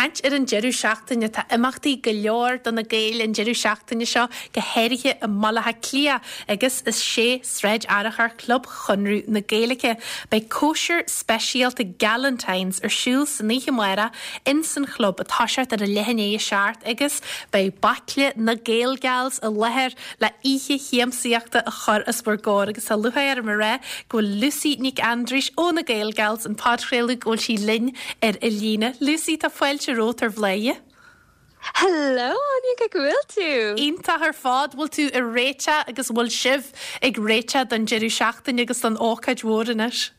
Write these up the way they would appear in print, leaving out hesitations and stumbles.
caint ar an deireadh seachtaine, tá imeachtaí go leor do na Gaeil an deireadh seachtaine seo, go háirithe i mBaile Átha Cliath agus i 6 Sráid Fhearchair, Club Chonradh na Gaeilge. Beidh cóisir speisialta Galentine's ar siúl san oíche amárach ins an chlub ag toiseacht ar a leath i ndiaidh a 7 agus beidh baicle na Gaelgals i láthair le oíche shiamsaíochta a chur os bhur gcomhair agus tá lúcháir orm a rá go bhfuil Lucy Nic Aindreis ó na Gaelgals an podchraoladh go bhfuil sí linn ar an líne. Lucy, tá fáilte romhat ar Bhladhaire. Hello Áine, cén chaoi go bhfuil tú? Iontach ar fad, bhfuil tú ag réiteach agus bhfuil sibh ag réiteach don deireadh seachtaine agus don ócáid mhór anois?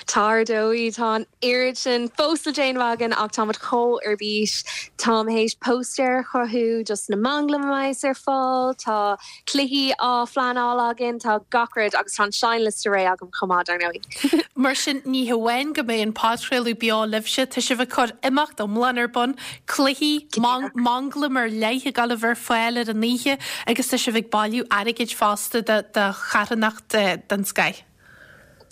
Tá ar dóigh, tá an oiread sin fós le déanamh againn ach táimid chomh ar bís. Táim théis póstaer a chruthú dos na manglaim a bheas ar fáil, tá cluichí á phleanáil againn, tá gach rud agus tá an seinnliosta réidh agam chomh maith, dar ndóigh. Mar sin, ní hamháin go mbeidh an podchraoladh beo libhse, tá sibh ag cur imeacht iomlán ar bun, cluichí, manglaim ar leith ag dul a bheith ar fáil ar an oíche agus tá sibh ag bailiú airgid fosta do charthanacht den scoith.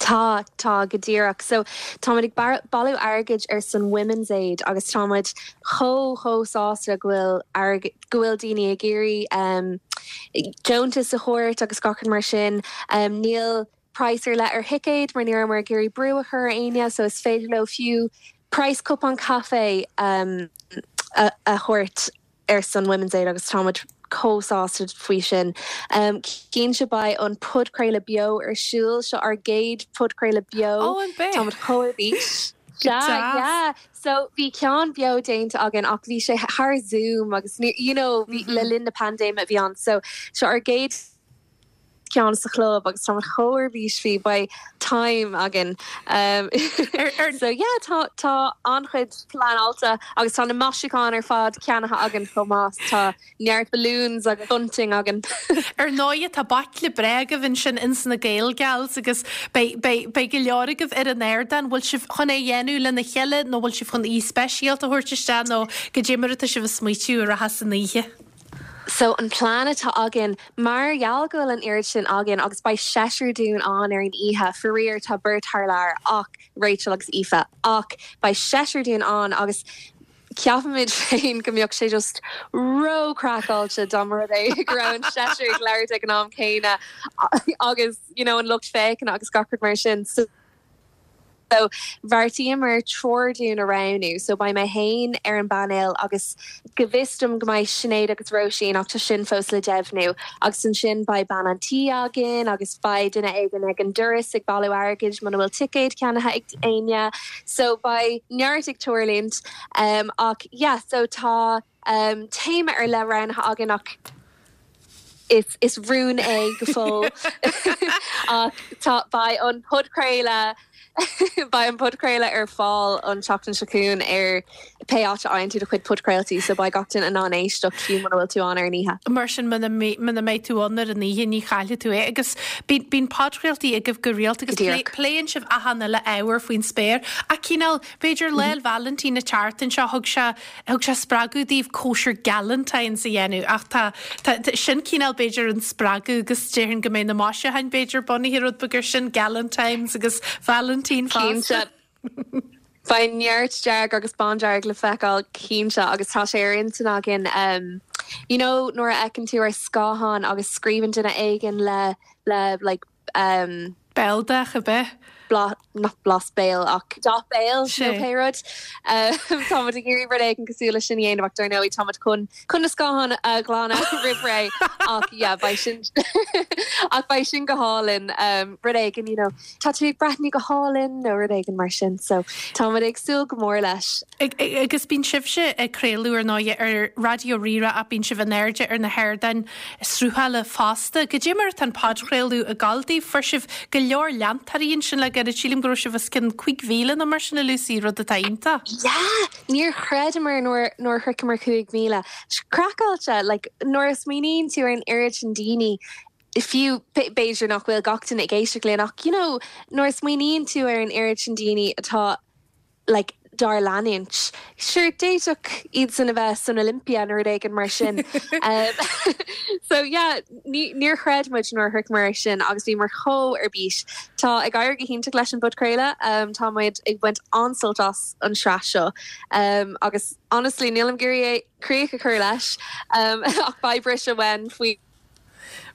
Tá, tá, go díreach. So, táimid ag bailiú airgid ar son Women's Aid agus táimid chomh, chomh sásta go bhfuil airgead, go bhfuil daoine ag iarraidh um, deontas a thabhairt agus gach rud mar sin. Um, níl praghas ar leith ar thicéid mar ní rabhamar ag iarraidh brú a chur ar éinne so is féidir leo fiú praghas cupán caife um, a, a thabhairt ar son Women's Aid agus táimid chomh sásta faoi sin. Cinnte beidh an podchraoladh beo ar siúl, seo ár gcéad podchraoladh beo. Ó, an bea? Táimid chomh ar bís. Go deas. Yeah. So bhí ceann beo déanta againn ach bhí sé thar Zoom agus you know bhí le linn na paindéime a bhí ann. So seo ár gcéad ceann sa chlub agus táimid chomh ar bís faoi, beidh time againn. So yeah, tá tá an-chuid pleanáilte agus tá na maisiúcháin ar fad ceannaithe againn chomh maith, tá neart balloons agus bunting againn. Ar ndóighe tá baicle breá agaibh ansin ins na Gaelgals agus beidh beidh beidh go leor agaibh ar an ardán, bhfuil sibh chun é a dhéanamh lena chéile nó bhfuil sibh chun aoi speisialta a thabhairt isteach nó goidé mar atá sibh ag smaoitiú a rachas an oíche? So an plean atá againn, mar gheall go bhfuil an oiread sin againn agus beidh seisear dúinn ann ar an oíche, faraor tá beirt thar lear ach Rachel agus Aoife, ach beidh seisear dúinn ann agus ceapaimid féin go mbeadh sé just ró-chraiceáilte dá mba rud é go raibh an seisear ag labhairt ag an am céanna agus you know an lucht féachana agus gach rud mar sin. So So, bheartaíomar triúr dúinn a roghnú. So, beidh mé féin ar an bpainéal agus go bhfios dom go mbeidh Sinéad agus Róisín ach tá sin fós le deimhniú. Agus ansin beidh bean an tí againn agus beidh duine éigin ag an doras ag bailiú airgid muna bhfuil ticéad ceannaithe ag éinne. So, beidh neart ag tarlúint. Ach yeah, so tá téama ar leith roghnaithe againn ach is is rún é go fóill ach tá beidh an podchraoladh beidh an podchraoladh ar fáil an tseachtain seo chugainn ar pé áit a fhaigheann tú do chuid podchraoltaí so beidh gach duine in ann éisteacht fiú muna bhfuil tú ann ar an oíche. Mar sin muna muna mbeidh tú ann ar an oíche ní chaillfidh tú é agus bíonn bíonn podchraoltaí agaibh go rialta agus pléann sibh achan uile ábhar faoin spéir ach cineál b'fhéidir Lá 'le Vailintín an tseachtain seo thug sé Thug sé spreagadh daoibh cóisir Galentine's a dhéanamh ach tá, tá, sin cineál b'fhéidir an spreagadh agus déarfainn go mbeidh na maisiúcháin b'fhéidir bunaithe rud beag ar sin, Galentine's agus Valentine fosta. Cinnte. Beidh neart dearg agus bándearg le feiceáil cinnte agus tá sé ar intinn againn you know nuair a fheiceann tú ar scáthán agus scríobhann duine éigin le, le like, um. Béaldath ab ea? Blas, not blas béil ach dath béil nó pé rud. Táimid ag iarraidh rud éigin cosúil leis sin a dhéanamh ach dar ndóigh táimid chun chun na scátháin a ghlanadh roimh ré ach yeah beidh sin ach beidh sin go hálainn rud éigin you know tá tú ag breathnú go hálainn nó rud éigin mar sin so táimid ag súil go mór leis. Agus bíonn sibhse ag craoladh ar ndóigh ar Raidió Rí-Rá ach bíonn sibh in airde ar na hardáin sruthála fosta. Goidé mar atá an podchraoladh ag gabháil daoibh? Fuair sibh go leor leantóirí ansin le gairid. Sílim go raibh sibh os cionn 5,000 nó mar sin, a Lucy, rud atá iontach. Yeah! Níor chreideamar nuair nuair a shroicheamar 5,000. Craiceáilte! Like, nuair a smaoiníonn tú ar an oiread sin daoine, fiú, b'fhéidir nach bhfuil gach duine ag éisteacht linn ach, you know, nuair a smaoiníonn tú ar an oiread sin daoine atá, like. dár leanúint. Sure, d'fhéadfadh iadsan a bheith san Olympia nó rud éigin mar sin. So yeah, ní, níor chreid muid nuair a shroicheamar é sin agus bhíomar chomh ar bís. Tá ag éirí go hiontach leis an bpodchraoladh, tá muid ag baint an-sult as an sraith seo agus honestly nílim ag iarraidh é críoch a chur leis ach beidh briseadh uainn faoi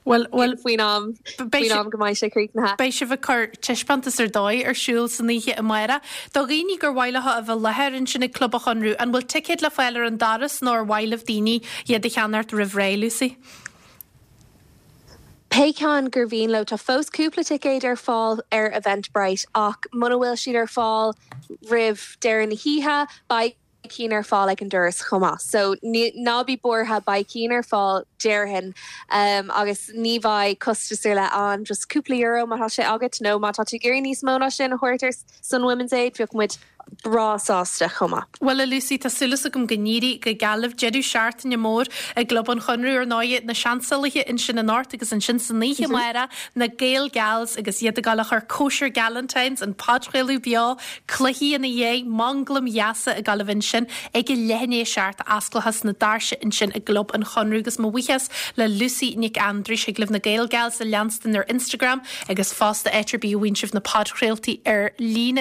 Bhuel, bhuel, faoin am, faoin am go mbeidh sé críochnaithe. Beidh sibh ag cur taispeántas ar dóigh ar siúl san oíche amárach. Do dhaoine gur mhaith leo a bheith i láthair ansin ag Club an Chonradh, an bhfuil ticéid le fáil ar an doras nó ar mhaith libh daoine iad a cheannacht roimh ré, Lucy? Pé ceann gur mhian leo, tá fós cúpla ticéad ar fáil ar Eventbrite ach muna bhfuil siad ar fáil roimh deireadh na hoíche, beidh. cinn ar fáil ag an doras chomh maith. So ná bí buartha, beidh cinn ar fáil déarfainn agus ní bheidh costas ar leith ann, just cúpla euro má tá sé agat nó má tá tú ag iarraidh níos mó ná sin a thabhairt ar son Women's Aid, bheadh muid breá sásta chomh maith. Bhuel a Lucy, tá súil agam go n-éirí go geal libh. Deireadh seachtaine mór i gClub an Chonradh ar ndóigh, na Seansálaithe ansin anocht agus ansin san oíche amárach, na Gael Gals agus iad ag dul a chur cóisir Galentine's, an podchraoladh beo, Cluichí ina dhiaidh, manglaim dheasa ag dul a bheith ansin ag a leath i ndiaidh a 7, osclóchas na doirse ansin i gClub an Chonradh agus mo bhuíochas le Lucy Nic Aindreis, thig libh na Gael Gals a leanstan ar Instagram agus fosta áit ar bith a bhfaigheann sibh na podchraoltaí ar líne.